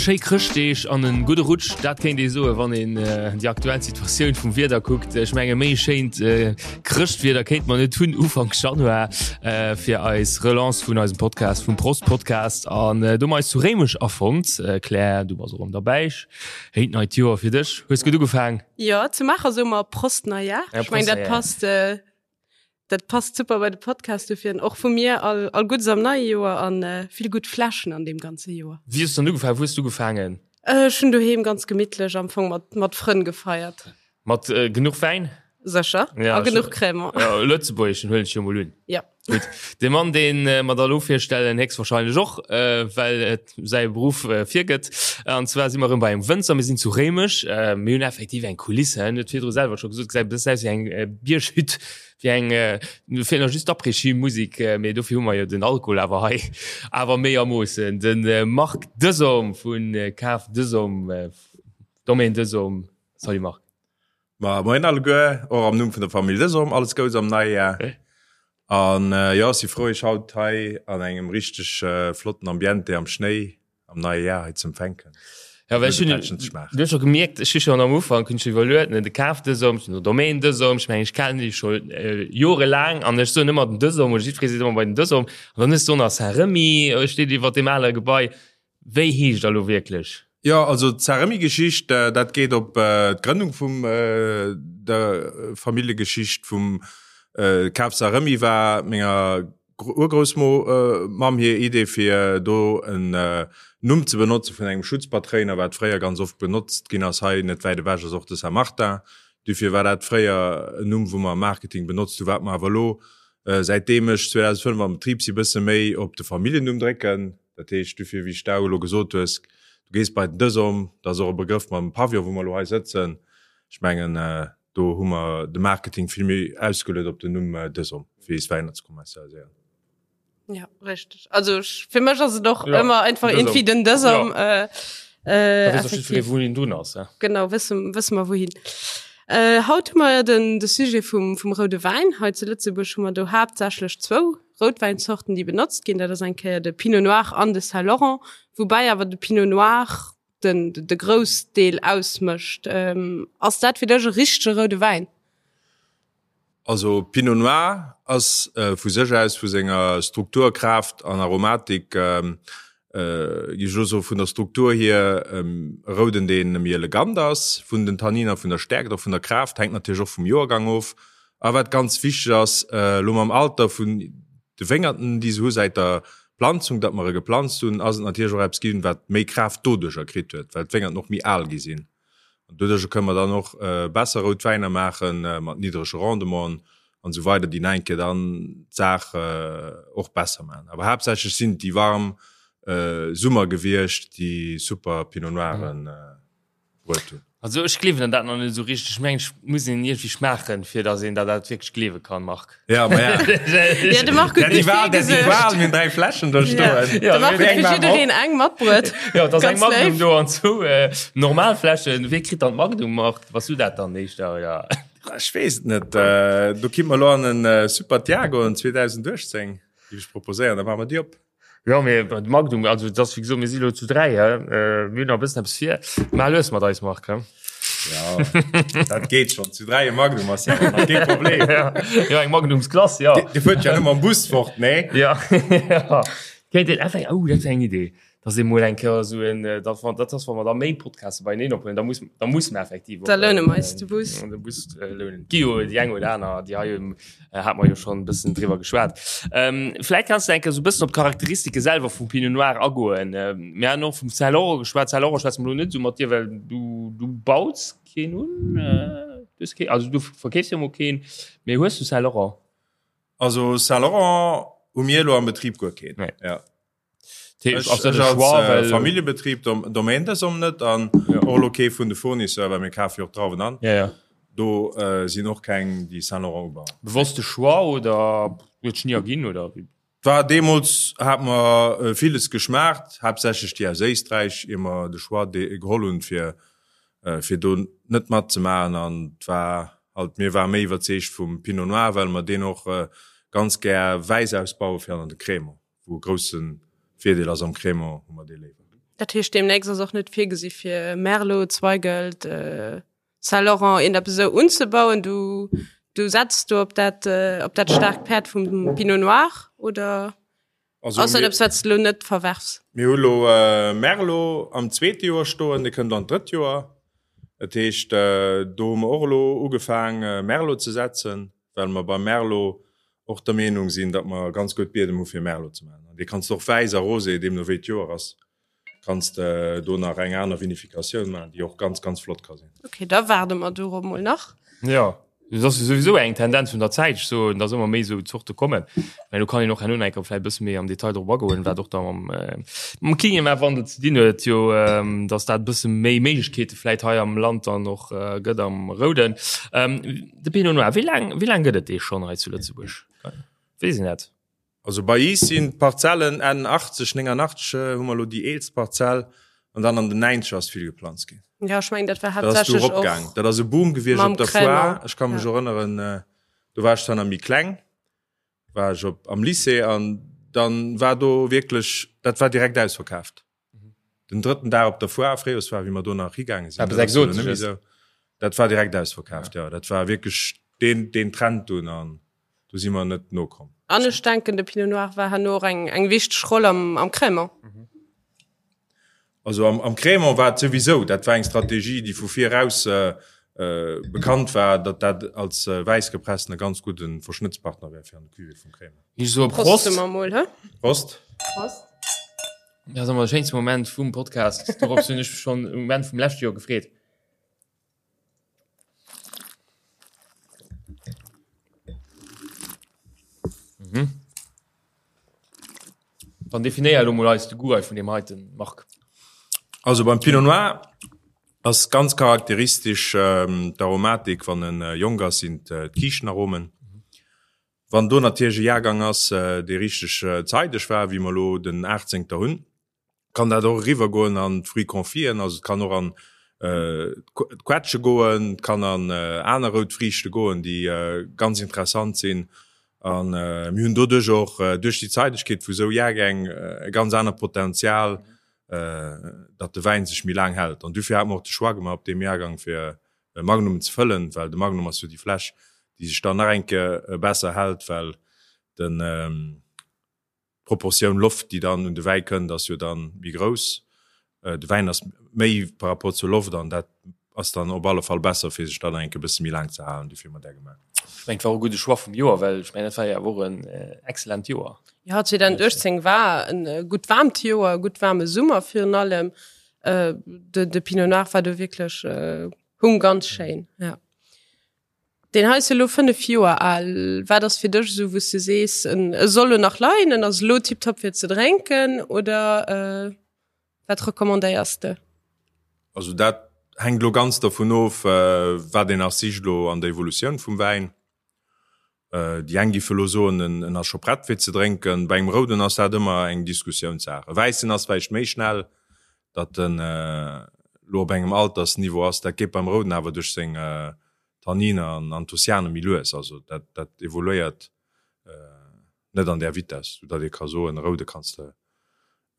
Schéi Chrëschtdeeg an en gudde Rutsch, dat kéint ee soen, wann een déi aktuell Situatioun vum Wieder kuckt. Ech menge méi schéint Chrëschtwieder kéint mer net hunn Ufank Januar fir eis Relance vun eisem Podcast, vum Prost Podcast. An do hu mer eis zu Réimech afonnt. Claire, du bass och erëm derbäi. Schéint neit Joer fir dech. Hues gutt ugefaang? Jo, zu Maacher soe mer Prost Neujahr. Ech meng dat passt. Dat passt super bei de Podcast, dofir och vu mir all, all Guddes am neie Joer an äh, vill gutt Fläschen an deem ganze Joer. Wéi hues du dann ugefaangen? Wou hues du ugefaangen? Äh, ech hunn doheem ganz gemittlech am Fong mat, mat Frënn gefeiert. Mat äh, genuch Wäin? Sécher. Ja, a genuch Cremant. Ja, Lëtzebuergeschen huelen ech jo mol un. Ja. Gutt. De Mann, deen äh, mer da lo virstellen, héchstwahrscheinlech och, äh, well et säi Beruff äh, virgëtt. An zwar si mer erëm bei engem Wënzer, mir sinn zu Réimech. Äh, mir hunn effektiv eng Kulisse, en huet virdru selwer scho gesot, gesäit e bëssen aus wéi eng äh, Bierghütt, wéi eng, äh, do feelt nach just d'Après-Ski-Musik, äh, mee dofir hu mer jo den Alkohol awer hei, awer méi a Moossen. Den äh, Marc Desom vun äh, Kaf Desom, äh, Domaine Desom. Salut Marc. Ma moien alleguer, och am Numm vun der Famill Desom alles Gouts am neie Jar. An jo, ech si frou iech haut hei an engem richteg flotten Ambiente am Schnéi am neie Jar hei ze empfänken. Ja, well ech hunn, du hues scho gemierkt, ech hu schonn am Ufank hunn ech iwwerluet, ne, de Kaf Desom, den Domaine Desom, ech mengen ech kennen déi scho jorelaang an ech soen ëmmer den Desom oder jiddweree seet ëmmer bei den Desom an dann hues du och nach Saint-Remy steet iwwert deem ale Gebai. Wéi heescht der lo wierklech? Jo, also d'Saint-Remy-Geschicht, dat geet op d'Grënnung vum der Familljegeschicht vum Kaf Saint-Remy war menger Urgroussmamm hir Idee fir do en Numm ze benotze vun engem Schutzpatréiner, wat fréier ganz oft benotzt ginn ass. Hei net wäit ewech ass och de Saint-Martin. Dofir war dat fréier en Numm, wou mer am Marketing benotzt hunn, wat mer awer elo, säitdeem ech 2005 am Betrib si, bësse méi op de Familljennumm drécken. Dat heescht dofir, wéi s de elo gesot hues, du gees bei den Dësom, dat ass och e Begrëff mam Pavillon, wou mer elo hei sëtzen. Ech mengen, do hu mer de Marketing vill méi ausgeluet op den Numm Dësom, fir eis Wäiner ze kommerzialiséieren. Ja, richteg. Also ech, fir mech ass et och ja, ëmmer einfach irgendwie den Dësom. Ja. Äh, äh, effektiv. Wou een drun ass. Ja. Genau, wësse, wësse mer wouhin. Äh, haut hu mer den, de Sujet vum, vum roude Wäin. Hei zu Lëtzebuerg hu mer do haaptsächlech zwou Routwäinzorten, déi benotzt ginn, dat ass eng Kéier de Pinot Noir an de Saint Laurent, woubäi awer de Pinot Noir den, de Groussdeel ausmécht. Ass dat fir dech e richtege roude Wäin? Also Pinot Noir ass vu sech aus, vu senger Struktur, Kraaft an Aromatik, géif ech elo soen, vun der Struktur hier e Rouden, dee méi elegant ass, vun den Tanniner, vun der Stäerkt, och vun der Kraaft, hänkt natierlech och vum Joergang of. A wat ganz wichteg ass, elo mam Alter vun de Wéngerten, déi se hu säit der Planzung, datt mer e geplanzt hunn, ass et natierlech och eppes ginn, wat méi Kraaft doduercher kritt huet, well d'Wéngerten och méi al gi sinn. An doduercher kënne mer dann och besser rout Wäiner maache mat niddrege Rendementen an esou weider, déi nach eng Kéier dann d'Saach och besser maachen. Awer haaptsächlech sinn et déi warm Summer gewiescht, déi super Pinot Noiren. Bruet hunn. Also ech gleewen dat nach net esou richteg. Ech mengen, ech muss een iergendwéi schmaachen, fir datt een dat dat wierklech gleewe kann, Marc. Ja, ma ja. Ja, de Marc huet gutt virgesuergt. Mir hunn 3 Fläschen do stoen. De Marc huet fir jiddereen eng matbruet. Ja, et ass eng Magnum do an zwou normal Fläschen. Wee kritt dann d'Magnum, Marc? Bass du dat dann éischter, oder? Ech weess et net. Do kinnt mer elo an en Super Tiago 2018, géif ech proposéieren. Da maache mer déi op. Jo, mee de Magnum, also et ass wéi gesot, mir si lo zu 3, hä, mir hunn nach e bëssen eppes vir. Maach lues mat eis, Marc, hä? Jo, dat geet schonn. Zu 3 e Magnum ass jo nach kee Problem. Jo, eng Magnumsklass, jo. Dir fuert jo net mam Bus fort, nee? Jo, jo. Kéint een effekt, oh, dat wär eng Idee, dass ee mol eng Kéier esou en, dat wa, dat ass, wa mer da méi Podcaste beieneen ophuelen, da muss, da musse mer effektiv och. Da loune mer eis de Bus. De Bus lounen. Et gi jo déi eng oder aner, déi hei Hat mer jo schon bëssen driwwer geschwat. Ähm, vläit kanns du eng Kéier sou bëssen op d'Charakteristike selwer vum Pinot Noir agoen. Ähm, mir han och vum Saint Laurent geschwat. Saint Laurent schwätze mer lo net sou mat dir, well du, du baus keen un. Äh, du hues keen, also du verkeefs jo mol keen, mee hues du Saint Laurent? Also Saint Laurent hu mir elo am Betrib guer keen. Nee. Ja. Ech, ech als äh, Familljebetrib dom, Domaine des om net an ja. och lo kee vun de Fournisseur, well mir kafe jo och Drauwen an. Ja, ja. Do äh, sinn och keng déi Saint Laurent ubauen. Bewosste Choix oder huet sech ni erginn oder? War deemools hat mer villes geschmaacht, haaptsächlech déi aus Éisträich, ier mer de Choix geholl hunn, fir fir do net matzemaachen. An et war halt, mir ware méi iwwerzeegt vum Pinot Noir, well mer deen och ganz gär wäiss ausbaue fir an de Crémant, wou e grousse Virdeel ass, am Crémant hu mer dee léiwer. Dat heescht, deemnächst ass och net virgesi fir Merlot, Zweigelt, Saint-Laurent een eppes esou unzebauen? Du, du setz do op dat, äh, op dat staarkt Päerd vum Pinot Noir oder Also, ass dat mir, eppes, wat s du lo net verwerfs? mir hu lo äh, Merlot am zweete Joer stoen, dee kënnt an d'drëtt Joer. Dat heescht, äh, do hu mer och elo ugefaang äh, Merlot ze setzen, well mer beim Merlot och der Meenung sinn, datt mer ganz gutt Biedem hu fir Merlot ze maachen. An dee kanns de och wäiss a rosé, deemno wéi d'Joer ass. Kanns de do nach eng aner Vinificatioun maachen, déi och ganz, ganz flott ka sinn. Ok, da waarde mer dorop mol nach. Jo, dat ass jo souwisou eng Tendenz vun der Zäit, ech soen, dass ëmmer méi esou Zorte kommen. Mä do kann een och herno nach eng Kéier vläicht e bësse méi am Detail drop agoen, wat och da mam, mam Klimawandel ze dinn huet, jo, dass dat e bësse méi Méiglechkeete vläicht hei am Land dann och gëtt am Rouden. De Pinot Noir, wéi laang, wéi laang gëtt et dee schonn hei zu Lëtzebuerg? Weess een dat? Also bei iis sinn d'Parzellen Enn 80, 89 hu mer elo déi eelst Parzell an dann an den 90er ass vill geplanzt ginn. Jo, ech mengen dat war Dat ass du haaptsächlech eropgaang. och Dat ass e Boom gewiescht mam op der Foire. Crémant. Ech ka mech Ja. erënneren, do war ech zwar nach méi kleng, war ech op am Lycée an dann war do wierklech, dat war direkt ausverkaaft. Den drëtten Dag op der Foire, Fréijoersfoire, wéi mer do nach higaange sinn, Eppes dat ass jo elo net méi Exotesches. esou, dat war direkt ausverkaaft, jo. Dat war wierklech deen, deen Trend dunn an do si mer net nokomm. An ech denken, de Pinot Noir war herno och eng, eng wichteg Roll am, am Crémant. Also am, am Crémant war et souwisou, dat war eng Strategie, déi vu vir eraus bekannt war, datt dat als wäissgepressten e ganz gudde Verschnëttspartner wär fir an de Cuvée vum Crémant. Ich soe Prost Prost. mer mol, hä? Prost. Prost. Dat ass ëmmer de schéinste Moment vum Podcast. Dorops hunn ech mech schonn um Enn vum leschte Joer gefreet. Mhm. Dann definéier elo mol eis de Goût hei vun deem heiten, Marc. Also beim Pinot Noir ass ganz charakteristesch d'Aromatik, wann en jonk ass, sinn d'Kiischtenoaromen. Wann do natierlech e Jahrgang ass, dee richteg zeideg war, wéi mer elo den Achtzéngter hunn, kann dat och eriwwer goen an d'Fruits confiten, also et kann och an d'Quetsche goen, et kann an aner rout Friichte goen, déi ganz interessant sinn. A mir hunn doduerch och, duerch déi Zeidegkeet vu sou Jahrgäng, e ganz anert Potenzial, datt de Wäin sech méi laang hält. An dofir hate mer och de Choix gemaach op deem Jahrgang, fir e Magnum ze fëllen, well de Magnum ass jo déi Fläsch, déi sech dann nach eng Kéier besser hält, well den d'Proportioun Loft, déi dann un de Wäi kënnt, ass jo dann méi grouss. De Wäin ass méi par rapport zur Loft an dat ass dann op alle Fall besser, fir sech dann nach eng Kéier e bësse méi laang ze halen. Dofir hu mer dat gemaach. Ech mengen, et war och e gudde Choix vum Joer, well ech mengen, dat war jo awer och en excellent Joer. Jo, 2018 war e gutt waarmt Joer, e gutt waarme Summer virun allem. Äh, de, de Pinot Noir war do wierklech äh, hung ganz schéin. Ja. Den hei ass elo 5 Joer al. Wat ass fir dech esou, wou s du sees, en, e soll lo nach leien, en ass elo tiptop fir ze drénken oder äh, wat recommandéiers de? Also dat hänkt lo ganz dervun of, äh, wat een nach sicht lo an der Evolutioun vum Wäin. Déi eng géife lo soen, en ass scho prett fir ze drénken. Bei engem Rouden ass dat ëmmer eng Diskussiounssaach. E Wäissen ass vläicht méi schnell, datt en lo op engem Altersniveau ass. Dat geet beim Rouden awer duerch seng Tanniner an Anthocyane méi lues. Also dat dat evoluéiert net an där Vitess, sou datt ee ka soen, e Roude kanns de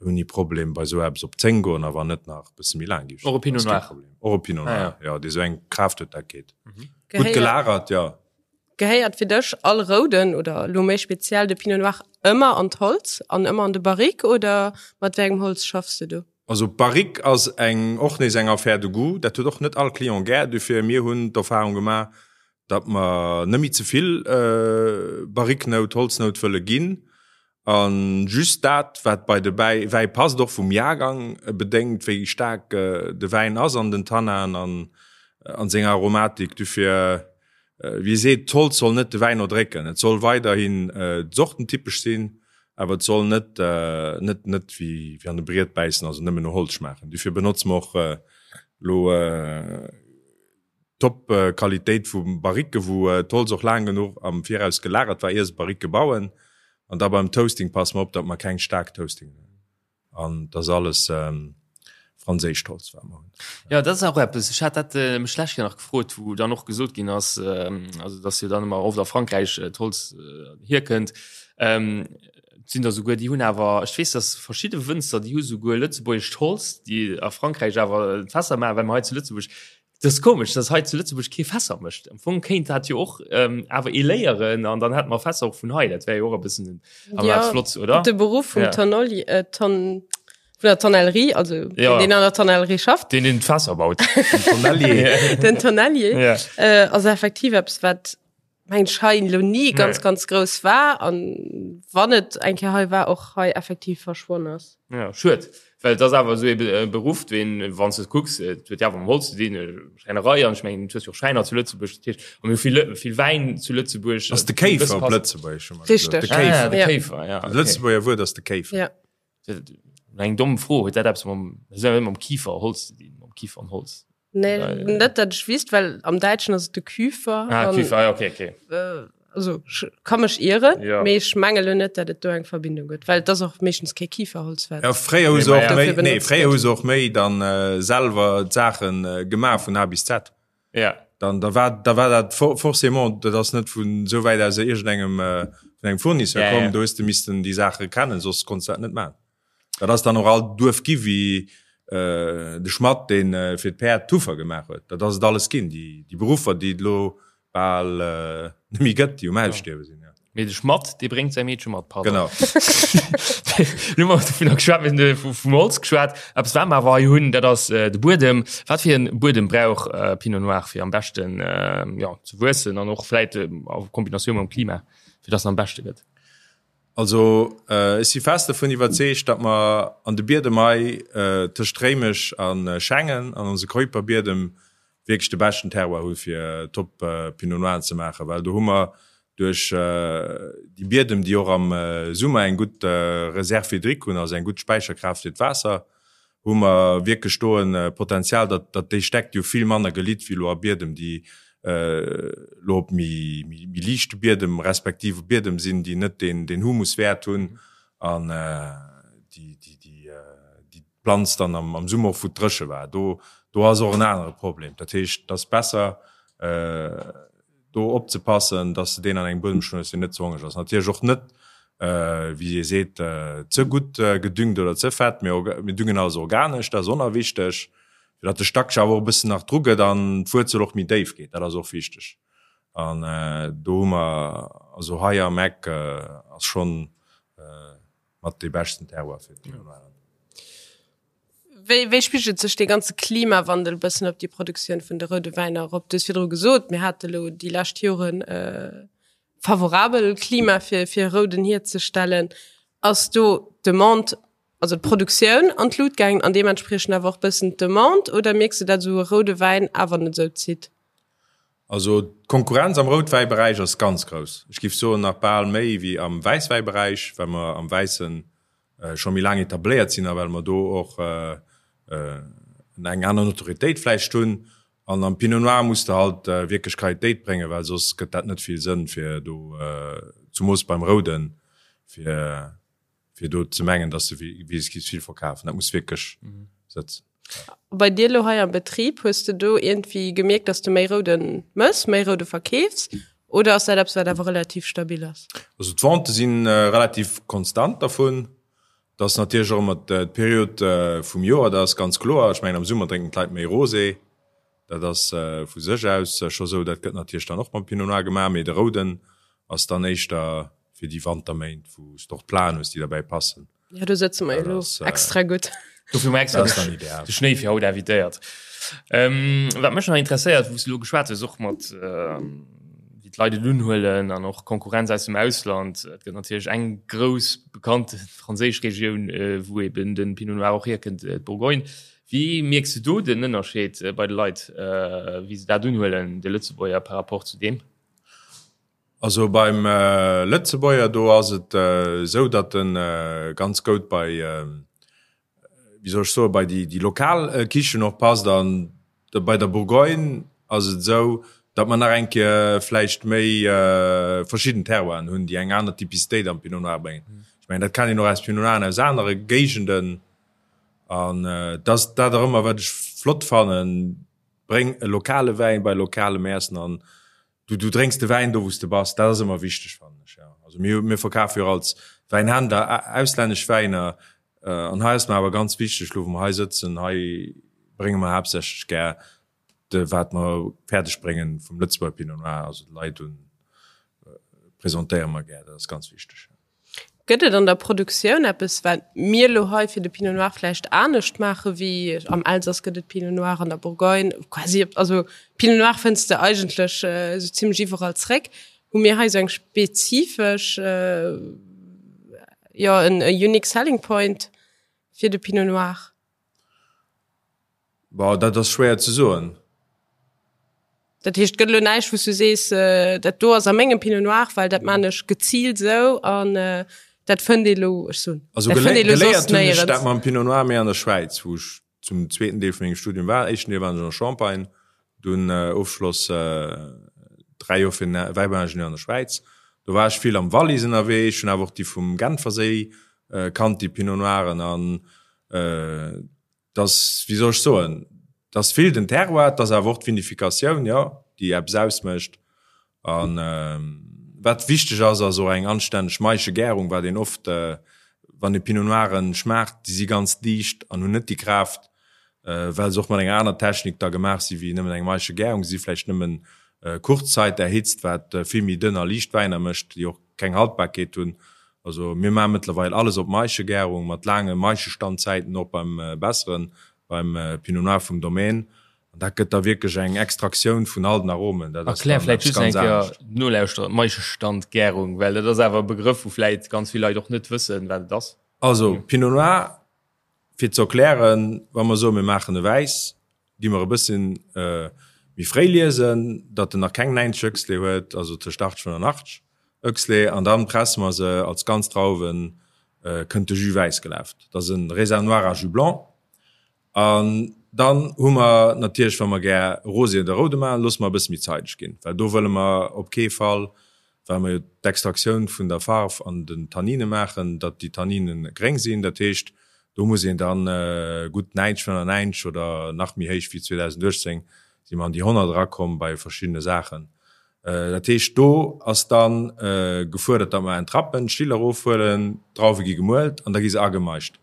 ouni Problem bei sou eppes op 10 goen a wann net nach e bësse méi laang gi. Och e Pinot Noir. Och e Pinot Noir, jo, dee sou eng Kraaft huet, dat geet. Gutt gelagert, jo. Gehéiert fir dech all Rouden oder elo méi speziell de Pinot Noir ëmmer an d'Holz an ëmmer an de Barrique oder mat wéi engem Holz schaffs de do? Also Barrique ass eng och nees eng Affaire de goût, dat huet och net all Client gär. Dofir mir hunn d'Erfahrung gemaach, datt mer net méi ze vill Barrique-Nout, Holznout wëlle ginn a just dat wat bei de Wäi passt, och vum Jahrgang bedéngt, wéi staark de Wäin ass an den Tannaen an an senger Aromatik. Dofir wéi ee seet, d'Holz soll net de Wäin erdrécken, et soll weiderhin sortentypesch sinn, awer et soll net net net wéi an e Briet bäissen, also nëmmen no Holz schmaachen. Dofir benotze mer och elo Top Qualitéit vu Barrique, wou d'Holz och laang genuch am Viraus gelagert war, ier se Barrique bauen. An da beim Toasting passe mer op, datt mer keng staark Toasting hunn. An dat ass alles franséischt Holz, wat mer hunn. Jo, dat ass och eppes, ech hat dat mech d'lescht Kéier nach gefrot, wou dann och gesot ginn ass, also datt jo dann ëmmer oft a Frankräich d'Holz hierkënnt. Et sinn der souguer, déi hunn awer, ech weess, datt verschidde Wënzer, déi hu souguer lëtzebuergescht Holz, déi a Frankräich awer d'Fässer maachen, well mer hei zu Lëtzebuerg Dat ass komesch, dass hei zu Lëtzebuerg kee Fässer mécht. Am Fong kéint dat jo och ähm, awer ee léieren an dann hätte mer Fässer och vun hei. Dat wär jo och e bëssen awer Ja, flott, oder? De Beruff vum Ja. Tonnoli, äh, Ton, vun der Tonnellerie, also Ja. deen, deen an der Tonnellerie schafft, Deen den d'Fässer baut. Tonnellier. den Tonnellier, Ja. äh, ass effektiv eppes, wat meng ech hei elo ni ganz, Nee. ganz grouss war an wann et eng Kéier hei war, och hei effektiv verschwonn ass. Ja, schued, well et ass awer esou e Beruff, deen, wann s de et kucks, et huet jo awer mam Holz ze dinn, Schräinerei, an ech mengen, du hues jo och Schräiner zu Lëtzebuerg, dat heescht, a mir hu vill, vill Wäin zu Lëtzebuerg. Ass de Kéifer op Lëtzebuergesch, hu mer gesot. Richteg. De Kéifer. Ah, de Ja. Kéifer, ja. Dat Okay. Lëtzebuerger Wuert ass de Kéifer. Ja. Eng domm Fro, huet dat eppes mam, mam Kifer Holz ze dinn, mam Kifer an Holz? Nee, net dat ech wisst, well am Däitschen ass et de Küfer. Ah, an, Küfer, ah, okay, okay. Äh, also ech ka mech ieren, Ja. mee ech menge lo net, dat et do eng Verbindung gëtt, well et ass och meeschtens kee Kiferholz, wat Ja, fréier hu Nee, se ma och ja. méi, dofir nee, benotzt fréier hu gëtt. se och méi dann äh, selwer d'Saachen äh, gemaach vun A bis Z. Ja. Dann da war da war dat for, forcément, dat ass net vun esou wäit aus iergendengem äh, vun engem Fournisseur Ja, komm, ja. do hues de missten déi Saache kennen, soss konns de dat net maachen. Dat ass dann och all Duerf gi wéi de Schmatt, dee fir d'Päerd d'Huffer gemaach huet. Dat ass et alles ginn, déi Beruffer, déi et elo bal net méi gëtt, déi um Ausstierwe sinn. Mee de Schmatt, dee bréngt säi Meedche mat, pardon. Genau. Lo hu mer dovunner geschwat, mir hunn vum Holz geschwat. Eppes, wat mer awer hei hunn, dat ass de Buedem. Wat fir e Buedem brauch Pinot Noir, fir am beschten, jo, ze wuessen an och vläit a Kombinatioun mam Klima, fir dass en am beschte gëtt? Also ech si fest dovun iwwerzeegt, datt mer an de Biedem hei tëscht Réimech a Schengen an onse Keuperbiedem wierklech de beschten Terroir hu fir top Pinot Noiren ze maachen, well do hu mer duerch déi Biedem, déi och am Summer eng gutt Réserve hydrique hunn, also eng gutt Späicherkraaft fir d'Waasser, hu mer wierklech do e Potenzial, datt datt déi Stäck, déi hu vill manner gelitt wéi elo a Biedem, déi elo op méi méi liichte Biedem respektiv op Biedem sinn, déi net deen deen Humuswäert hunn an déi déi déi déi d'Planz dann am am Summer och wou et dréche war. Do do ass och en anere Problem. Dat heescht, et ass besser do opzepassen, dass de deen an engem Buedem stoen hues, deen net ze hongereg ass. Natierlech och net, wéi ee seet, ze gutt gedüngt oder ze fett. Mir mir düngen alles organesch, dat ass och nach wichteg, fir datt de Stack sech awer och e bëssen nach dru gëtt an d'Wuerzel och méi déif geet. Dat ass och wichteg. An do hu mer, also hei am Eck ass schonn mat dee beschten Terroir fir d'Pinot Noir. Wéi, wéi spigelt sech dee ganze Klimawandel e bëssen op déi Produktioun vun de roude Wäiner erop? Du hues virdru gesot, mir hate lo déi lescht Joren e favorabel Klima fir, fir rouden hierzestellen. Ass do d'Demande, also d'Produktioun an d'Lut gaangen an deementspriechend awer och bëssen d'Demande oder mierks de, dat esou e roude Wäin awer net esou zitt? Also d'Konkurrenz am Routwäiberäich ass ganz grouss. Ech géif soen nach bal méi wéi am Wäisswäiberäich, well mer am Wäisse scho méi laang etabléiert sinn a well mer do och eng aner Notoriétéit vläicht hunn. An am Pinot Noir muss de halt wierklech Qualitéit bréngen, well soss gëtt dat net vill Sënn fir do, zumoos beim Rouden, fir fir do ze mengen, dass de wéi vill verkafen. Dat muss wierklech sëtzen. Bei dir elo hei am Betrib, hues de do iergendwéi gemierkt, dass de méi Rouden mëss, méi Roude verkeefs oder ass dat eppes, wat awer relativ stabil ass? Also d'Vente si relativ konstant dervun. Dat ass natierlech och ëmmer d'Period vum Joer, dat ass ganz kloer. Ech mengen am Summer drénken d'Leit méi Rosé, dat ass vu sech aus scho sou. Dat gëtt natierlech dann och mam Pinot Noir gemaach, mee de Rouden ass dann éischter fir déi Wanterméint, wou s de och d'Plaen hues, déi derbäi passen. Ja, do sëtze mer jo elo extra gutt. Dofir hu mer extra de Schnéi fir haut invitéiert. Ähm, wat mech nach interesséiert, wou s du elo geschwat hues, och mat wéi d'Leit et unhuelen an och Konkurrenz aus dem Ausland. Et gëtt natierlech eng grouss bekannte franséisch Regioun, wou eben de Pinot Noir och hierkënnt, d'Bourgogne. Wéi mierks du do den Ënnerscheed bei de Leit, wéi se dat unhuelen, de Lëtzebuerger par rapport zu deem? Also beim Lëtzebuerger, do ass et esou, datt e ganz goud bei, wéi soll ech soen, bei déi lokal Kichen och passt. An bei der Bourgogne ass et esou, Datt mer nach eng Kéier vläicht méi verschidden Terroiren hunn, déi eng aner Typicitéit am Pinot Noir bréngen. Ech mengen, dat kennt een och aus Pinot Noiren aus anere Géigenden. An et ass dat och ëmmer, wat ech flott fannen, Bréng e lokale Wäin bei lokalem Iessen an du, du drénks de Wäin do, wou s de bass. Dat ass ëmmer wichteg, fannen ech, jo. Also mir, mir verkafe jo och als Wäinhändler auslännesch Wäiner. An hei ass mer awer ganz wichteg, elo wou mer hei sëtzen, hei brénge mer haaptsächlech gär de wat mer fäerdeg bréngen vum Lëtzebuerger Pinot Noir, also de Leit un presentéiere mer gär, dat ass ganz wichteg. Gëtt et an der Produktioun eppes, wat mir elo hei fir de Pinot Noir vläicht anescht maache wéi am Elsass gëtt et Pinot Noir, an der Bourgogne quasi, also Pinot Noir fënns de eigentlech esou zimlech iwwerall zréck. Hu mir hei esou eng spezifesch, jo en unique selling point fir de Pinot Noir? Bon, dat ass schwéier ze soen. Dat heescht, et gëtt elo näischt, wou s du sees, dat do ass a mengem Pinot Noir, well dat maan ech geziilt esou an dat fënnt ee lo, ech soen, Also dat fënnt ee lo soss geléiert hunn ech néierens. dat mam Pinot Noir méi an der Schwäiz, wou ech zum zweeten Deel vu mengem Studium war. Éischten Deel waren ech an der Champagne, dunn Ofschloss 3 Joer fir den Wäibauingenieur an der Schwäiz. Do war ech vill am Wallis ënnerwee, ech hunn awer och déi vum Genferséi kannt, déi Pinot Noiren an Dass, wéi soll ech soen, dass vill den Terroir, dass awer och d'Vinificatioun, jo, déi eppes ausmécht. A wat wichteg ass, ass och eng anstänneg Maischegärung, wat een oft, wann ee Pinot Noiren schmaacht, déi si ganz liicht an hunn net déi Kraaft, well se och mat enger aner Technik da gemaach si wéi nëmmen eng Maischegärung. Se si vläicht nëmmen kurz Zait erhitzt, wat vill méi dënn a liicht Wäiner mécht, déi och keng Haltbarkeet hunn. Also mir maache mëttlerweil alles op Maischegärung mat laange Maischestandzäiten, och beim besseren, beim Pinot Noir vum Domaine. An dat gëtt da wierklech eng Extraktioun vun all den Aromen. Dat ass Erklär dann vläit eppes just eng ganz Kéier anescht. Nolauschterer d'Maischestandgärung, well dat ass awer e Begrëff, wou vläit ganz vill Leit och net wëssen, wat et ass. Also Pinot Noir, fir ze erklären, wa mer soen, mir maachen e Wäiss, gi mer e bësschen méi fréi liesen, datt en nach keng 90 Oechsle huet, also tëscht 80 an 85 Oechsle, an dann presse mer se als ganz Drauwen, kënnt de Jus wäiss gelaf. Dat ass e Raisin noir à jus blanc. An dann hu mer natierlech, wa mer gär Rosé oder Roude maachen, loosse mer e bësse méi zeideg ginn, well do wëlle mer op kee Fall, well mer jo d'Extraktioun vun der Farf an den Tannine maachen, datt déi Tannine gréng sinn. Dat heescht, do muss een dann gutt 90, 95 oder nach méi héich wéi 2018 si mer an déi 100 erakomm bei verschiddene Saachen. Dat heescht, do ass da gefuerdert, datt mer entrappen, d'Still erofhuelen, d'Drauwe gi gemuelt an da gi se agemaischt.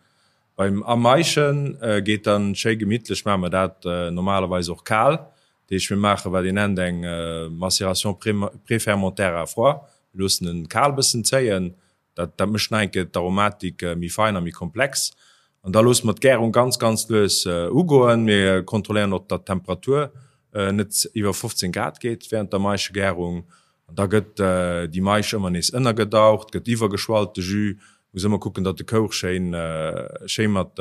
Beim Amaischen geet dann schéi gemittlech, maache mer dat normalerweis och kal. Dat heescht, mir maache wat een nennt eng Macération préfermentaire à froid. Mir loossen en kal bëssen zéien, dat dat mécht nach eng Kéier d'Aromatik méi fein a méi komplex. An da loosse mer d'Gärung ganz, ganz lues ugoen. Mir kontrolléieren och, datt d'Temperatur net iwwer 15 Grad geet während der Maischegärung. An da gëtt déi Maisch ëmmer nees ënnergedaucht, gëtt iwwergeschwallt, de Jus. Muss ëmmer kucken, datt de Kouch schéin, schéi mat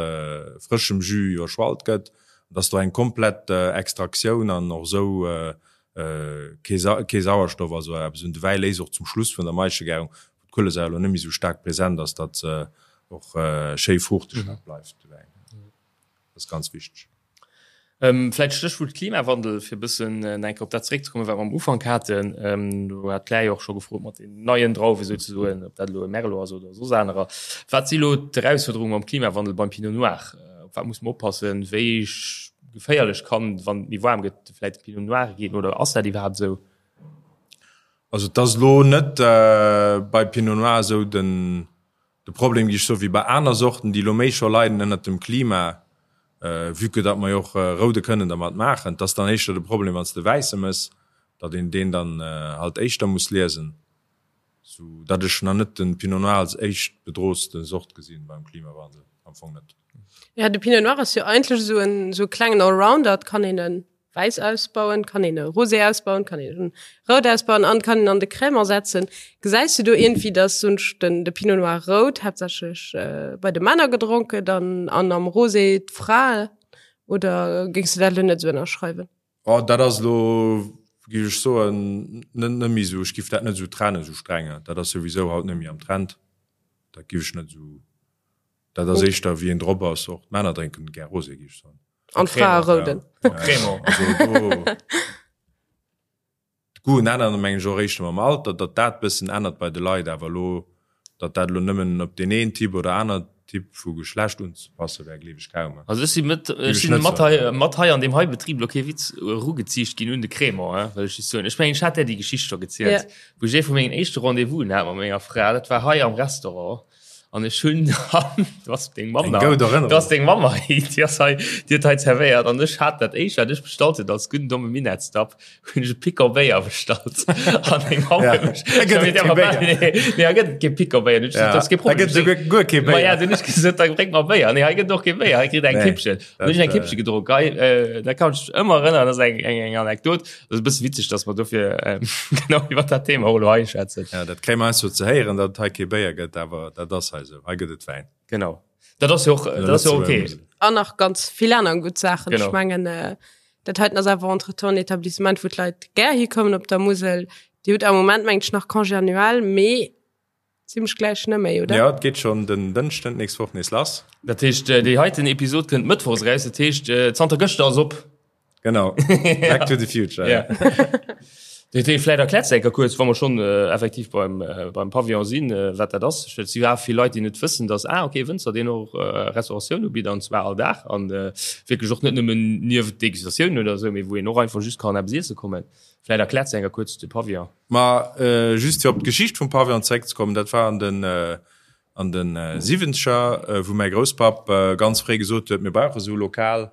frëschem Jus iwwerschwallt gëtt, an dass do eng komplett Extraktioun an och esou kee, kee Sauerstoff, also eppes un de Wäi léist och zum Schluss vun der Maischegärung, wou d'Kuelesäier elo net méi esou staark present ass, datt se och schéi fruuchteg nach bleift, de Wäin. Dat ass ganz wichteg. Vläicht Stéchwuert Klimawandel, fir e bëssen nach eng Kéier op dat zeréckzekommen, wat mer am Ufank haten. Do hat d'Claire jo och scho gefrot mat den neien Drauwe souzesoen, ob dat elo e Merlot ass oder soss anerer. Wat si elo d'Erausfuerderunge mam Klimawandel beim Pinot Noir? Op wat muss mer oppassen? Wéi geféierlech kann, wann et méi waarm gëtt, vläicht de Pinot Noir ginn oder ass dat iwwerhaapt esou? Also et ass elo net bei Pinot Noir esou den De Problem, géif ech soen, wéi bei aner Sorten, déi elo méi scho leiden ënnert dem Klima, vue que datt mer jo och Roude kënnen dermat maachen, 't ass dann éischter de Problem, wann s de Wäisse mëss, datt een deen dann halt éischter muss liesen, sou datt ech nach net de Pinot Noir als éischt bedrootste Sort gesinn beim Klimawandel, am Fong net. Jo, de Pinot Noir ass jo eigentlech esou en esou e klengen Allrounder, et kann een en wäiss ausbauen, kann een e Rosé ausbauen, kann een rout ausbauen an kann een an de Crémant setzen. Gesäis du do iergendwéi, dass sonst den de Pinot Noir rout haaptsächlech äh, bei de Männer gedronk gëtt an, an am Rosé d'Frae oder géings du dat elo net esou ënnerschreiwen? Oh, dat ass elo, géif ech soen, net net méi esou, ech géif dat net esou trennen, esou streng. Dat ass souwisou haut net méi am Trend, dat géif ech net esou, dat ass éischter wéi een drop ass. Och d'Männer drénken gär Rosé, géif ech soen. An Frae rouden. Crémant, also do. D'Goûten änneren, mengen ech, och eréischt mam Alter, datt dat bëssen ännert bei de Leit, awer elo, datt dat elo nëmmen op deen een Typ oder aner Typ vu Geschlecht unzepasse wär, gleef ech kaum. Also ech si mat, ech si mat hei, mat hei an deem hei Betrib, elo kee Witz, erugeziicht ginn un de Crémant, hein, wëll ech just soen. Ech mengen, ech hat där déi Geschicht scho gezielt, wou ech ee vu mengen éischte Rendez-vousen hat mat menger Fra, dat war hei am Restaurant. An ech hunn dann, du ass deng Mamm Eng goud Erënnerung. Du ass deng Mamm hei, déi ass hei, déi huet hei zerwéiert an ech hat dat éischt, wat ech bestallt hunn, als gudden domme Minettsdapp, hunn ech e Picon Béier bestallt. An deng Mamm Ja. huet mech, Da gëtt et kee Béier. Nee, nee, hei gëtt et kee Picon Béier. Hunn ech gesot, Ja. dat ass kee Da Problem. gëtt esouguer guer kee Ma ja, Béier. dunn hunn ech gesot, da bréng mer Béier. Nee, hei gëtt et och kee Béier, hei kritt eng Nee, Kippchen. Dann hunn ech dat, eng Kippche gedronk. Hei, äh, da kann ech mech ëmmer erënneren, dat ass eng, eng, eng Anekdot. Dat ass e bësse witzeg, dass mer dofir genau iwwer dat Thema och elo hei schwätzen. Ja, dat kréie mer heiansdo ze héieren, datt et hei kee Béier gëtt, awer dat ass hei esou. Hei gëtt et Wäin. Genau. Dat ass jo och, dat ass jo ok. An nach ganz vill aner gutt Saachen. Genau. Ech mengen, dat heiten ass awer entretemps en Etablissement, wou d'Leit gär hikommen op der Musel. Dir hutt am Moment, mengen ech, nach Congé annuel, mee Zimmlech gläich net méi, oder? Jo, et geet schonn den Dënschden d'nächst Woch nees lass. Dat heescht, déi heiten Episod kënnt mëttwochs eraus, dat heescht, zanter gëschter ass op. Genau, Back to the future. Ja. Dat heescht, vläicht erkläers de eng Kéier kuerz, wa mer schonn effektiv beim, beim Pavillon sinn, wat dat ass. Well et si jo awer vill Leit, déi net wëssen, dass, ah, okay, Wënzer, deen och Restauratioun ubitt, an zwar all Dag, an wierklech och net nëmmen nieft Degustatioun oder esou, mee wou een och einfach just kann eppes iesse kommen. Vläicht erkläers de eng Kéier kuerz de Pavillon. Ma just fir op d'Geschicht vum Pavillon zeréckzekommen, dat war an den an de Siwwenzeger, wou mäi Grousspapp ganz fréi gesot huet, mir brauche sou e Lokal.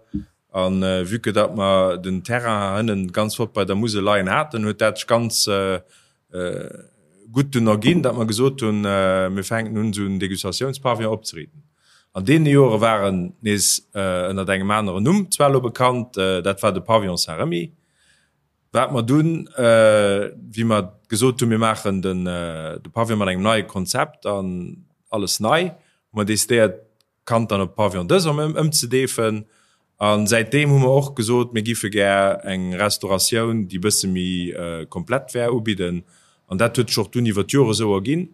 A vue que datt mer den Terrain hënnen ganz flott bei der Musel leien haten, huet dat sech ganz gutt dunn erginn, datt mer gesot hunn, mir fänken un esou en Degustatiounspavillon opzeriiten. An deene Jore war en nees ënnert engem aneren Numm zwar elo bekannt, dat war de Pavillon Saint-Remy. Wat mer dunn, wéi mer gesot hunn, mir maachen den de Pavillon mat engem neie Konzept an alles nei, hu mer decidéiert, d'Kand dann op Pavillon des Hommes ëmzedeefen. A säitdeem hu mer och gesot, mir giffe gär eng Restauratioun, déi e bësse méi komplett wär, ubidden. An dat huet sech och dunn iwwer d'Jore sou erginn.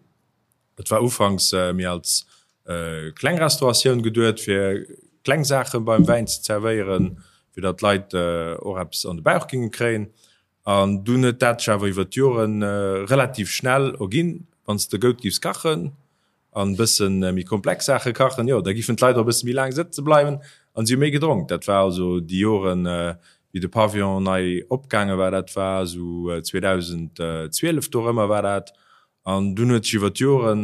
Et war ufanks méi als kleng Restauratioun geduet, fir kleng Saache beim Wäin ze zerwéieren, fir datt d'Leit och eppes an de Bauch géinge kréien. An dunn huet dat sech awer iwwer d'Jore relativ schnell erginn, wann s de goud giffs kachen an e bësse méi komplex Saache kachen, jo, da giffen d'Leit och e bësse méi laang sëtze bleiwen an si hu méi gedronk. Dat war also déi Joren, wéi de Pavillon nei opgaange war, dat war esou 2012 dorëmmer war dat. An dunn huet sech iwwer d'Joren,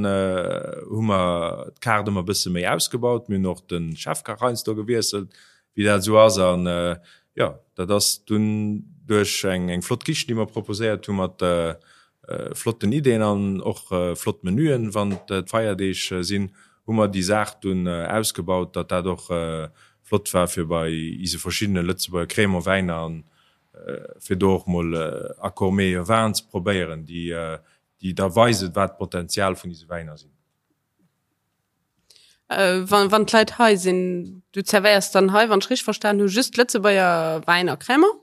hu mer d'Kaart ëmmer e bësse méi ausgebaut. Mir hunn och de Chefkach heiansdo gewiesselt, wéi dat esou ass. An jo, dat ass dunn duerch eng eng flott Kichen, déi mer proposéiert hu mat flotten Ideeën an och flott Menüen, wann d'Feierdeeg sinn, hu mer déi Saach dunn ausgebaut, datt dat och flott war fir bei ise verschiddene Lëtzebuerger Crémant-Wäiner an fir do och mol Accords meilleurs vins ze probéieren, déi déi da weisen, wat d'Potenzial vun dise Wäiner sinn. Wann, wann d'Leit hei sinn, du zerwéiers dann hei, wann ech richteg verstan hu, just Lëtzebuerger Wäin a Crémant?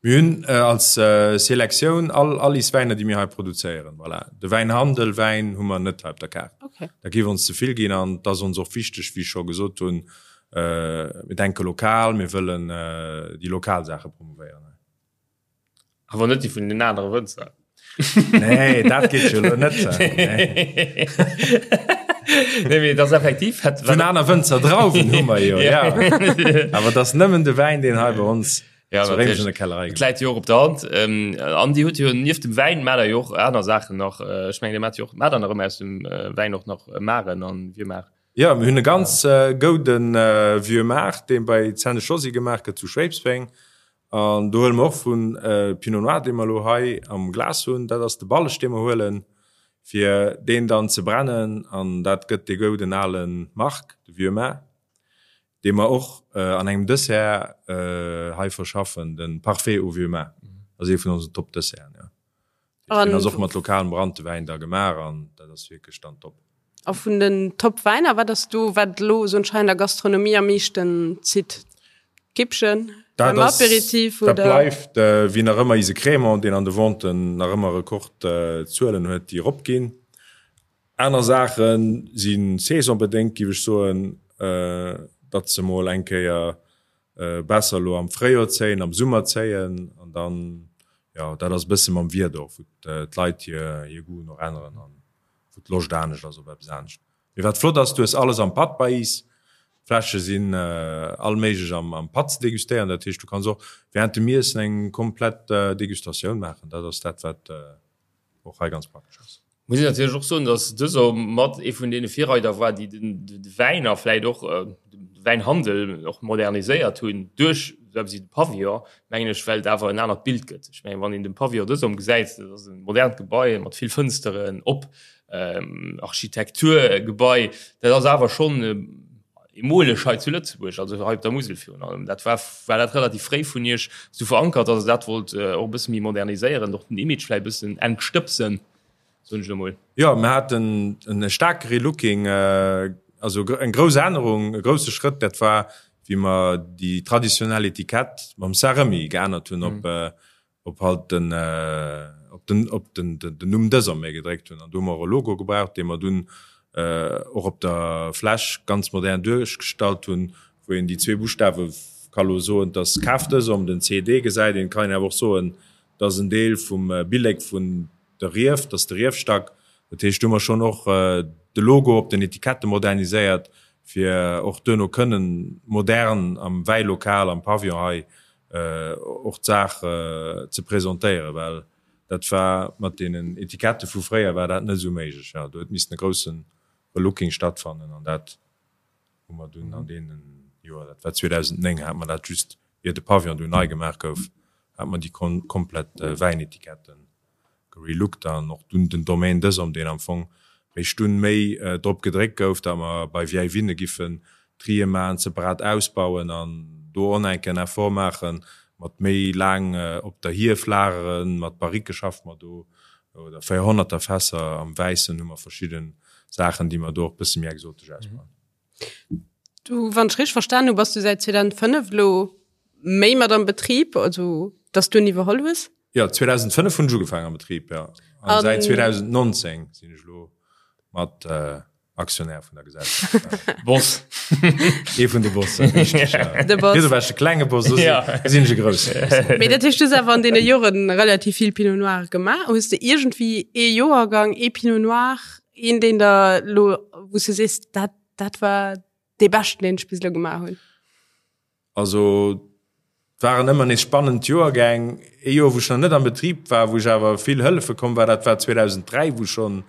Mir hunn als Selektioun all all is Wäiner, déi mir hei produzéieren. Voilà. De Wäinhandel, Wäin hu mer net hei op der Kaart. Okay. Dat géif ons ze vill ginn an et ass ons och wichteg, wéi ech scho gesot hunn, Mir denke lokal, mir wëllen déi lokal Saache promouvéieren. Awer net déi vun den anere Wënzer. Nee, dat geet jo elo net. Nee, mee dat ass effektiv. Vun aner Wënzer Drauwen hu mer jo, ja. Awer et ass nëmmen de Wäin, deen hei bei ons Ja, zu Réimech an der Kellerei Et läit jo och op der Hand. An Dir hutt jo nieft dem Wäin maacht Der jo och aner Saachen nach. Ech mengen, Dir maacht jo och, maacht Der nach ëmmer aus dem Wäin och nach Maren an Vieux-Mar? Jo, mir hunn e ganz gouden Vieux Maart, dee bei Zenne Josy gemaach gëtt zu Schwéidsbeng. An do huele mer och vun Pinot Noir, dee mer elo hei am Glas hunn. Dat ass de Balleg, dee mer huelen, fir deen dann ze brennen. An dat gëtt dee gouden ale Marc, de Vieux Maart, dee mer och an engem Dessert hei verschaffen, de Parfait au Vieux Maart. Dat ass ee vun onsen Top-Desserten, jo. Deen ass och mat lokalem Branntewäin da gemaach an dat ass wierklech dann top. A vun den Top-Wäiner, wat ass do, wat elo esou anscheinend der Gastronomie am meeschten zitt? D'Kippchen beim Aperitif oder? Dat bleift wéi nach ëmmer ise Crémant, deen an de Venten nach ëmmer Rekordzuelen huet, déi eropginn. Aner Saache si saisonbedéngt, géif ech soen, datt se mol eng Kéier besser elo am Fréijoer zéien, am Summer zéien an dann. Jo, dat ass e bësse mam Wieder och, wou d'Leit hir hir Goûten och änneren an wou d'Loscht anescht ass op eppes anescht. Mee wat flott ass, du hues alles am Patt bei is. D'Fläsche sinn all méiglech am am Patt ze degustéieren. Dat heescht, du kanns och während dem Iessen eng komplett Degustatioun maachen. Dat ass dat, wat och hei ganz praktesch ass. Muss een natierlech och soen, datt dëser mat ee vun deene Virreider war, déi de Wäin a vläit och de Wäinhandel och moderniséiert hunn duerch esou eppes wéi de Pavillon, mengen ech, well et awer en anert Bild gëtt. Ech mengen, wann een de Pavillon dësom gesäit, dat ass e modernt Gebai mat vill Fënsteren, op Architekturgebai, dat ass awer schonn eemoleg hei zu Lëtzebuerg, also hei op der Musel virun allem. Dat war, war dat relativ fréi vun Iech esou verankert, datt Der dat wollt och e bësse méi moderniséieren, och den Image vläicht e bëssen entstëbsen? Soen ech elo mol. Jo, mir haten e staarke Relooking, also eng grouss Ännerung, e grousse Schrëtt, dat war, wéi mer déi traditionell Etikett mam Saint-Remy geännert hunn op, op halt den, op den, op den, den Numm Desormais gedréckt hunn. An do hu mer och e Logo gebraucht, dee mer dunn och op der Fläsch ganz modern duerchgestallt hunn, wou een déi zwee Buschtawe ka lo soen, dass Kaf Desormes, den CD gesäit een, kann een awer och soen, dass en Deel vum Billek vun De Rief, dat ass de Riefstack. Dat heescht, do hu mer schonn och de Logo op den Etikette moderniséiert, fir och duerno kënnen modern am Wäilokal, am Pavillon hei och d'Saach ze presentéieren, well dat war mat deenen Etikette vu fréier war dat net esou méiglech. Jo, do huet missen e grousse Relooking stattfannen an dat hu mer dunn an deenen Joer, dat war 2009, hate mer dat just ier de Pavillon dunn nei gemaach gouf, hate mer déi komplett Wäinetiketten gerelooked an och dunn den Domaine Desom, deen am Fong réischt dunn méi drop gedréckt gouf, datt mer bei Vieilles Vignes giffen Trië maachen, separat ausbauen an do och enk en Effort maachen, mat méi laang op der Hief lageren, mat Barrique schaffe mer do, oder 400er Fässer. Am Wäissen hu mer verschidde Saachen, déi mer do och bësse méi exotesch ausbauen. Du, wann ech richteg verstan hu, bass du säit 2005 elo méi mat am Betrib, also dass du en iwwerholl hues? Jo, 2005 hunn ech ugefaangen am Betrib, jo. An säit 2019 sinn ech elo mat Aktionär vun der Gesellschaft. Boss. Ee vun de Bossen, richteg, ja. De Boss. Wieso war ech de klenge Boss, lo sinn ech e grousse Boss. Mee dat heescht, du hues awer an deene Joren relativ vill Pinot Noir gemaach. Hues de iergendwéi ee Joergang, ee Pinot Noir, een deen der elo, wou s du sees, dat, dat war dee beschten, deen ech bis elo gemaach hunn? Also et waren ëmmer nees spannend Joergäng. Ee Joer, wou ech nach net am Betrib war, wou ech awer vill hëllefe komm war, dat war 2003, wou schonn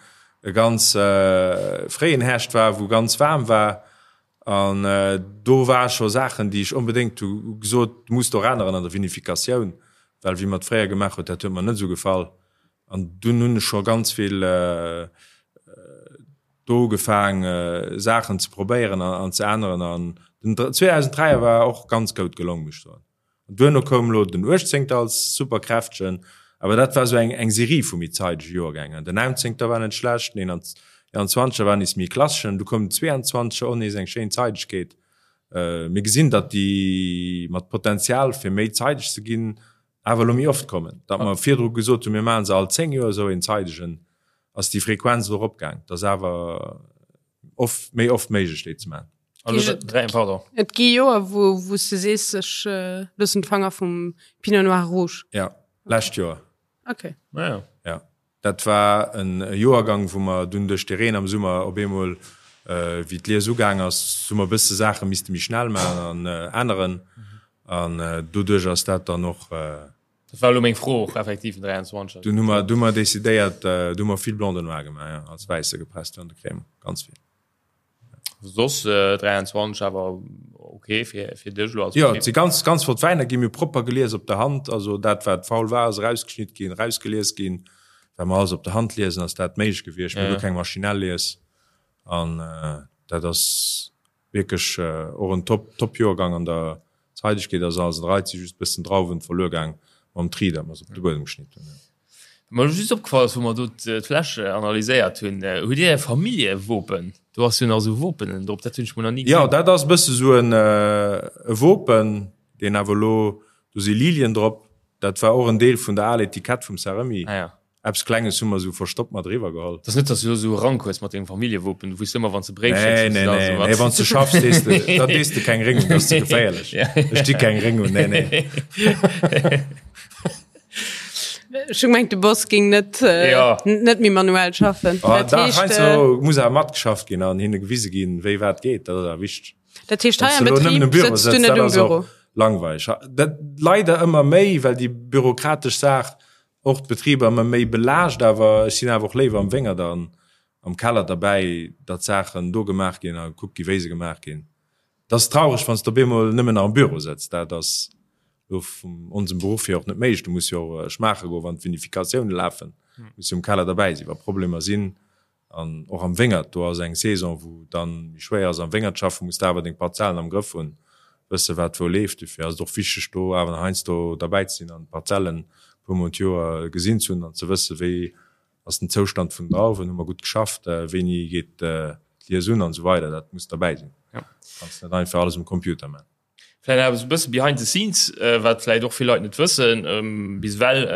e ganz fréien Härscht war, wou ganz waarm war. An do ware scho Saachen, déi ech onbedéngt hu gesot, du muss do änneren an der Vinificatioun, well wéi mer et fréier gemaach huet, dat huet mer net esou gefall. An dunn hunn ech scho ganz vill do ugefaang Saachen ze probéieren an ze änneren an den 2003er war och ganz goud gelong muss ech soen. An duerno koum lo den 18 als super kräftegen, awer dat war sou eng eng Serie vu méi zeidege Joergängen. Den 19 war net schlecht, den 21er war nees méi klasseschen, du koum den 22er och nees eng schéin Zeidegkeet. Mir gesinn datt déi mat Potenzial fir méi zeideg ze ginn awer elo méi oft kommen. Datt mer virdru gesot hunn, mir maache se all 10 Joer esou een zeidegen, ass déi Frequenz elo eropgaang. Et ass awer oft, méi oft méiglech déi ze maachen. Et gi Joer, wou wou s de sees, ech loossen d'Fanger vum Pinot Noir Rouge. Jo, lescht Joer. Okay. Ja. Dat war en Joergang, wou mer dunn duerch de Reen am Summer op eemol, wéi d'Lies ugaang ass, hu mer e bësse Saache misste méi schnell maachen an änneren. An doduerch ass dat dann och. Dat war elo meng Fro och effektiv, den 23er. Dunn hu mer, du hu mer decidéiert, du hu mer vill Blanc de Noir gemaach, jo, als Wäisse gepresst an de Cremant, ganz vill. Soss 23 awer ok fir fir dech elo als Jo, et si ganz ganz flott Wäiner ginn, mir hu propper gelies op der Hand, also dat wat faul war ass erausgeschnitt ginn, erausgelies ginn. Well mer alles op der Hand liesen ass dat méiglech gewiescht, mir hu guer keng maschinell Lies an dat ass wierklech och en top top Joergang an der Zeidegkeet ass alles an der Rei, et si just bëssen Drauwen verluer gaang mam Tri, dat mer se op de Buedem geschnitt hunn. Wat mer just opgefall ass, wou mer do d'Fläsch analyséiert hunn, hutt Dir e Familljewopen? Do ass jo nach esou Wopen drop, dat hunn ech mol nach ni gesinn. Jo, dat ass e bësse esou en e Wopen, deen awer elo, do si Lilien drop, dat war och en Deel vun der aler Etikett vum Saremi. Ah ja. Eppes Klenges hu mer esou verstoppt mat eriwwer geholl. Et ass net, dass du elo esou e Rank hues mat dengem Familljewopen, du wouss ëmmer, wann s de Bréif schécks, Nee, nee, nee, nee, wann s de schaffs, dees de, da dees de keng Réng un, dat ass ze geféierlech. Ech di keng Réng un, nee, nee. Ech hu gemengt, de Boss géing net, ja. net méi manuell schaffen. Ah, dat heescht, heiansdo äh, muss awer matgeschafft ginn an hinne gewise ginn, wéi wat geet. Dat ass awer wichteg. Dat heescht, hei am Betrib sëtzt du net um Büro? Langweilig. Dat leider ëmmer méi, well déi bürokratesch Saach och d'Betriber ëmmer méi belaascht, awer ech sinn awer och léiwer am Wéngert an am Keller derbäi, datt Saachen do gemaach ginn a gekuckt gi wéi se gemaach ginn. Et ass traureg, wann s de op eemol nëmmen nach am Büro sëtz. Dat ass elo vun onsem Beruff hier och net méiglech. Du muss jo och schmaache goen, wann d'Vinificatioune lafen, muss jo um Keller derbäi sinn, wa Problemer sinn. An och am Wéngert, do ass eng Saison, wou dann méi schwéier ass am Wéngert schaffen, muss de awer deng Parzellen am Grëff hunn, wësse wat wou leeft. Dofir ass et och wichteg, do awer nach heiansdo derbäi ze sinn an d'Parzellen e puer Mol d'Joer gesinn ze hunn an ze wësse wéi ass den Zoustand vun den Drauwen, hu mer gutt geschafft, wéini geet d'Lies un an esou weider. Dat muss derbäi sinn. Kanns net einfach alles um Computer man. Vläicht awer esou e bësse behind the scenes, wat vläicht och vill Leit net wëssen bis ewell,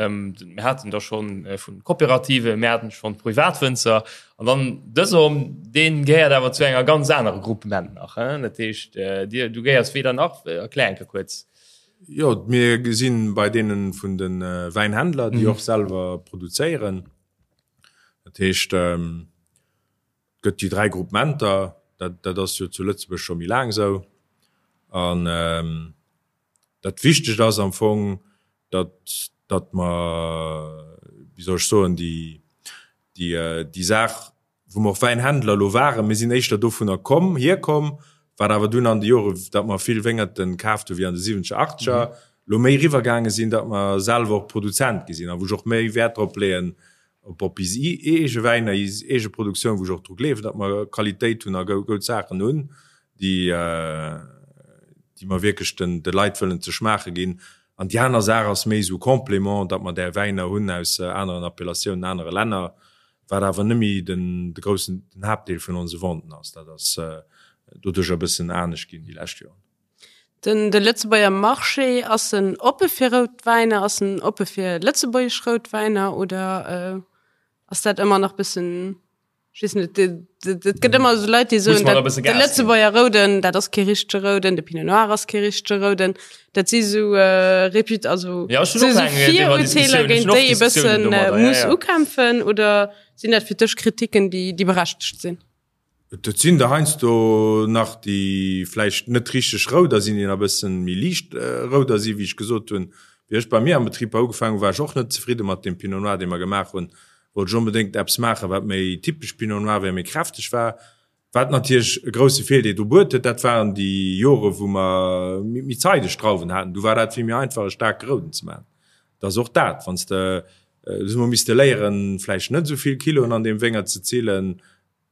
Mir haten der schonn vu Kooperative, mir haten schonn Privatwënzer an dann dëse Homme, dee gehéiert awer zu enger ganz anerer Gruppement nach. Dat heescht, dir, du gehéiers weder nach, erklär eng Kéier kuerz. Jo, mir gesinn bei deene vun de Wäinhändler, déi och selwer produzéieren. Dat heescht, et gëtt déi 3 Groupementer, dat, dat ass jo zu Lëtzebuerg scho méi laang esou. An dat Wichtegt ass am Fong, datt, datt mer, wéi soll ech soen, déi, déi, déi Saach wou mer och Wäinhändler elo waren, mir sinn éischter dovunner komm, hierkomm, wat awer dunn an de Jore, datt mer vill Wéngerten kaaft hu wéi an de siwwenzeger, achtzeger, elo méi eriwwergaange sinn, datt mer selwer och Produzent gi sinn a wou ech och méi Wäert drop leeën, op op is eege Wäiner, is eege Produktioun, wou ech och dru gleewen, datt mer Qualitéit hunn a goud Saachen hunn, déi déi mer wierklech den de Leit wëllen ze schmaache ginn. An déi aner Saach ass méi esou Complément, datt mer där Wäiner hunn aus aneren Appellatiounen, anere Länner, wat awer net méi den de groussen, den Haaptdeel vun onse Venten ass. Dat ass doduercher e bëssen anescht ginn déi lescht Joren. Den de Lëtzebuerger Marché, ass en oppe fir rout Wäiner, ass en oppe fir lëtzebuergesch rout Wäiner oder ass dat ëmmer nach bëssen, ech weess net, et gëtt ëmmer esou Leit, déi soen, dat de Lëtzebuerger Rouden, dat ass kee richtege Rouden, de Pinot Noir ass kee richtege Rouden. Dat si sou Reput also ja, sou Virurteeler géint déi ee bëssen muss ukämpfen oder sinn dat fir dech Kritiken, déi déi berechtegt sinn? Et sinn der heiansdo nach, déi vläicht net richteg rouder sinn, déi nach e bëssen méi liicht rouder sinn. Wéi ech gesot hunn, wéi ech bei mir am Betrib ugefaangen hunn, war ech och net zefridde mat deem Pinot Noir, dee mer gemaach hunn. Wollt ech onbedéngt eppes maachen, wat méi typesch Pinot Noir wär, méi kräfteg war. Wat natierlech e grousse Virdeel do buet huet, dat waren déi Jore wou mer méi zeideg Drauwen haten. Du war dat vill méi einfach e staarke Rouden ze maachen. Et ass och dat, wann s de, do hu mer misste léieren, vläicht net esou vill Kiloen an deem Wéngert ze zillen,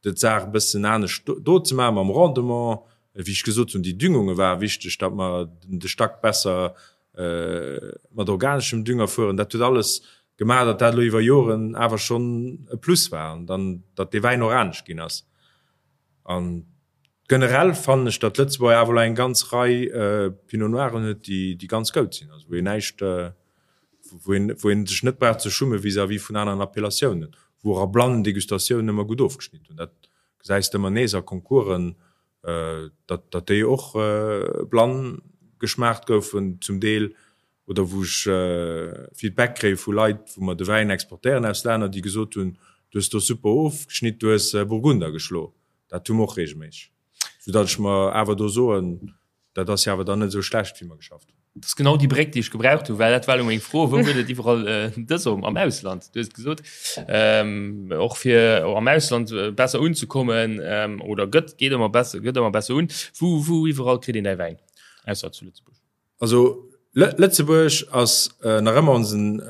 d'Saach e bëssen anescht do ze maachen mam Rendement. Wéi ech gesot hunn, déi Düngunge ware wichteg, datt mer de Stack besser mat organeschem Dünger fueren. Dat huet alles gemaach, datt dat elo iwwer Joren awer schonn e Plus war an dann, datt dee Wäin och anescht ginn ass. An generell fannen ech, datt Lëtzebuerg awer elo eng ganz Rei Pinot Noiren huet, déi, déi ganz goud sinn, also wou een näischt, wou een, wou een sech net brauch ze schumme vis-à-vis vun aneren Appellatiounen, wou och a blannen Degustatiounen ëmmer gutt ofgeschnidden hunn. Dat gesäis de ëmmer nees a Concoursen, datt déi och blann geschmaacht goufen zum Deel, oder wou ech Feedback kréie vu Leit, wou mer de Wäin exportéieren aus Länner, déi gesot hunn, du hues do super ofgeschnitt, du hues Burgunder geschlo. Dat hu mer och reegelméisseg, soudatt ech mer awer do soen, dat ass jo awer dann net esou schlecht, wéi mer geschafft hunn. Dat ass genau déi Bréck, déi ech gebraucht hunn, well dat war elo meng Fro, Wou gëtt et iwwerall dës am Ausland? Du hues et gesot, och fir am Ausland besser unzekommen, oder gëtt, geet ëmmer besser, gëtt ëmmer besser un. Wou, wou iwwerall kritt een däi Wäin, ausser zu Lëtzebuerg? Also Lëtzebuerg ass nach ëmmer onsen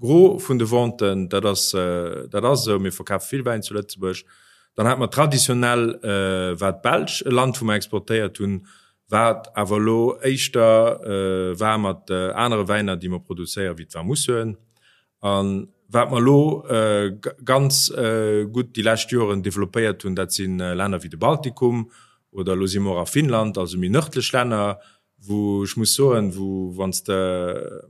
Gros vun de Venten, dat ass, dat ass esou. Mir verkafe vill Wäin zu Lëtzebuerg. Dann hate mer traditionell war d'Belsch e Land, wou mer exportéiert hunn, wat awer elo éischter war mat anere Wäiner, déi mer produzéieren, wéi d'Vermousseuren. A wat mer elo ganz gutt déi lescht Joren developpéiert hunn, dat si Länner wéi de Baltikum oder elo si mer och a Finnland, also méi nërdlech Länner, wou ech muss soen, wou wann s de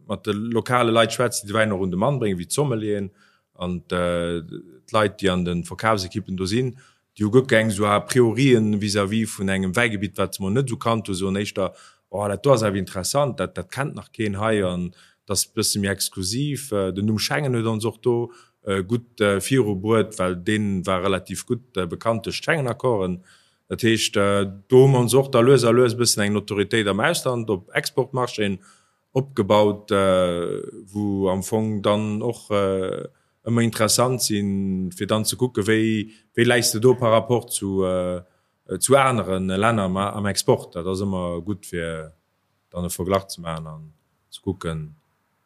mat de lokale Leit schwätz, déi de Wäin och un de Mann bréngen, wéi d'Sommelieren an d'Leit, déi an de Verkafsekippen do sinn, déi hu guer keng esou A priorien vis-à-vis vun engem Wäigebitt, wat se mol net esou kannt hunn, soen éischter, Oh, dat do ass awer interessant, dat dat kennt nach keen hei an dat. Dat ass e bësse méi exklusiv. Den Numm Schengen huet ons och do gutt virubruet, well dee war relativ gutt bekannt duerch d'Schengen-Accorden. Dat heescht, do hu mer ons och da lues a lues e bëssen eng Notoriétéit am Ausland op Exportmarchéen opgebaut, wou am Fong dann och ëmmer interessant sinn, fir dann ze kucken, wéi, wéi läis de do par rapport zu, zu anere Länner am Export. Dat ass ëmmer gutt, fir dann e Verglach ze maachen an ze kucken,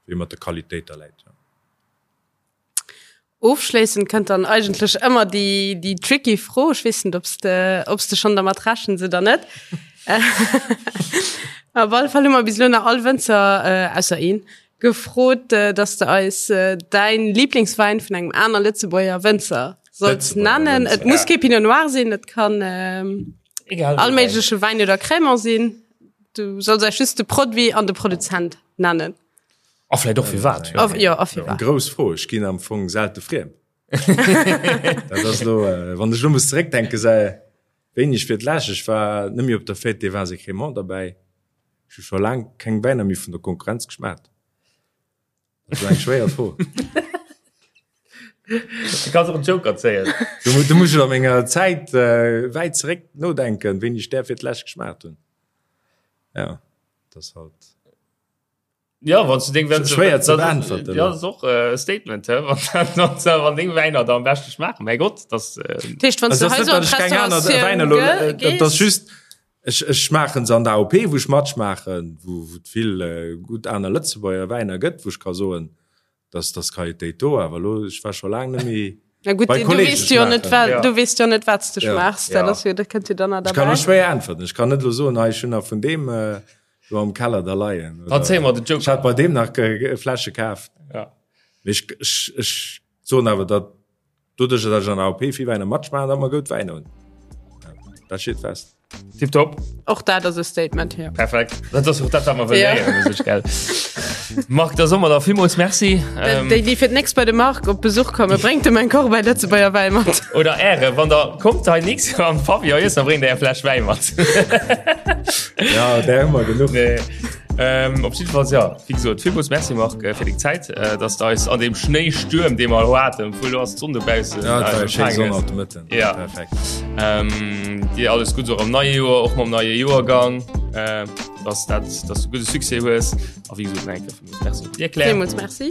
wéi mat der Qualitéit da läit. Ofschléissend kënnt dann eigentlech ëmmer déi, déi tricky Fro. Ech weess net, ob s de, ob s de schonn dermat rechens oder net. Op alle Fall hu mer bis elo nach all Wënzer, ausser een, gefrot, dass de eis däin Lieblingswäin vun engem aner Lëtzebuerger Wënzer solls nennen. Et muss kee Pinot Noir sinn, et kann all méigleche Wäin oder Crémant sinn. Du solls eis just de Produit an de Produzent nennen. A vläit och firwat. Jo, a firwat. Eng grouss Fro. Ech ginn am Fong selte friem. Dat ass elo, wann ech elo muss zeréckdenken, säi wéini ech fir d'lescht, ech war net méi op der Fête des Vins et Crémants derbäi. Ech hu scho laang keng Wäiner méi vun der Konkurrenz geschmaacht. Dat ass eng schwéier Fro. Du kanns och en Joker zéien. Du, du muss ech a menger Zäit äh, wäit zeréck nodenken, wéini ech där fir d'lescht geschmaacht hunn. Ja, dat ass halt. Ja, wann du deng Wäin schwéier ze beäntwerten. Ja, das ist och äh, e Statement, hä? Wann, wann deng Wäiner da am beschte schmaachen. Mäi Gott, das äh, Tischcht, wann du hei so an d'Restauratioun Wäiner ge das just ech, ech schmaachen se an der AOP, wou ech matschmaachen, wou, wou et vill äh, gutt aner Lëtzebuerger Wäiner gëtt, wou ech ka soen, dass dass Qualitéit do, awer elo ech war scho laang net méi Na gut, bei du Kollegen weess jo net schmaachen. wat Ja. du weess jo net wat s du Ja. schmaachs, dat Ja. ass jo dat kënnt jo dann nach Ech kann derbäi. elo schwéier äntwerten. Ech kann net elo soen, hei ech hunn nach vun deem äh, do am Keller da leien. Dann zéie mer den Ech Joker. hat bei deem nach äh, Fläsche kaaft. Ja. Mee ech, ech, ech soen awer, datt doduerch, datt ech an der AOP vill Wäiner matschmaachen, datt mer goud Wäiner hunn. Ja, dat steet fest. Tipptopp. Och dat ass e Statement, jo. Perfekt. Dat ass och dat, wat mer wëllen Ja. héieren, u sech, gell? Marc, da soe mer der villmools Merci. Ähm, Déi, déi fir d'nächst bei de Marc op Besuch kommen, bréngt em eng Korb Lëtzebuerger Wäi mat. Oder Äre, wann der kommt hei nächst Joer am Pavillon iessen, da bréngt der eng Fläsch Wäi mat. Ja, där hu mer genuch. Nee. Ähm, op jiddefalls, ja, wéi gesot, villmools Merci, Marc, äh, fir deng Zäit, äh, dass du eis an deem Schnéistuerm, dee mer elo haten, obwuel elo ass d'Sonn dobaussen, Ja, et war äh, eng schéi empfaangen Sonn hues. haut de Mëtten. Ja. Perfekt. Ähm, dir alles Gutts och am neie Joer, och mam neie Joergang, äh, dass dat, dass du gudde Succès hues. A wéi gesot, nach eng Kéier villmools Merci fir d'Erklärung. Villmools Merci.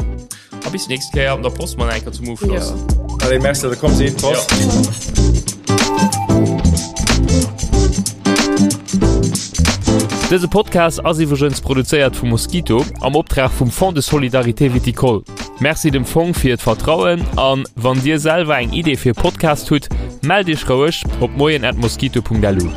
A bis nächst Kéier an der Post mal eng Kéier zum Ofschloss. Ja. Allez, merci, dass der komm sidd. Prost. Ja. Dëse Podcast ass iwwregens produzéiert vu Mosquito am Optrag vum Fonds de Solidarité Viticole. Merci dem Fong fir d'Vertrauen an wann Dir selwer eng Idee fir e Podcast hutt, mellt Iech roueg op moien@mosquito.lu.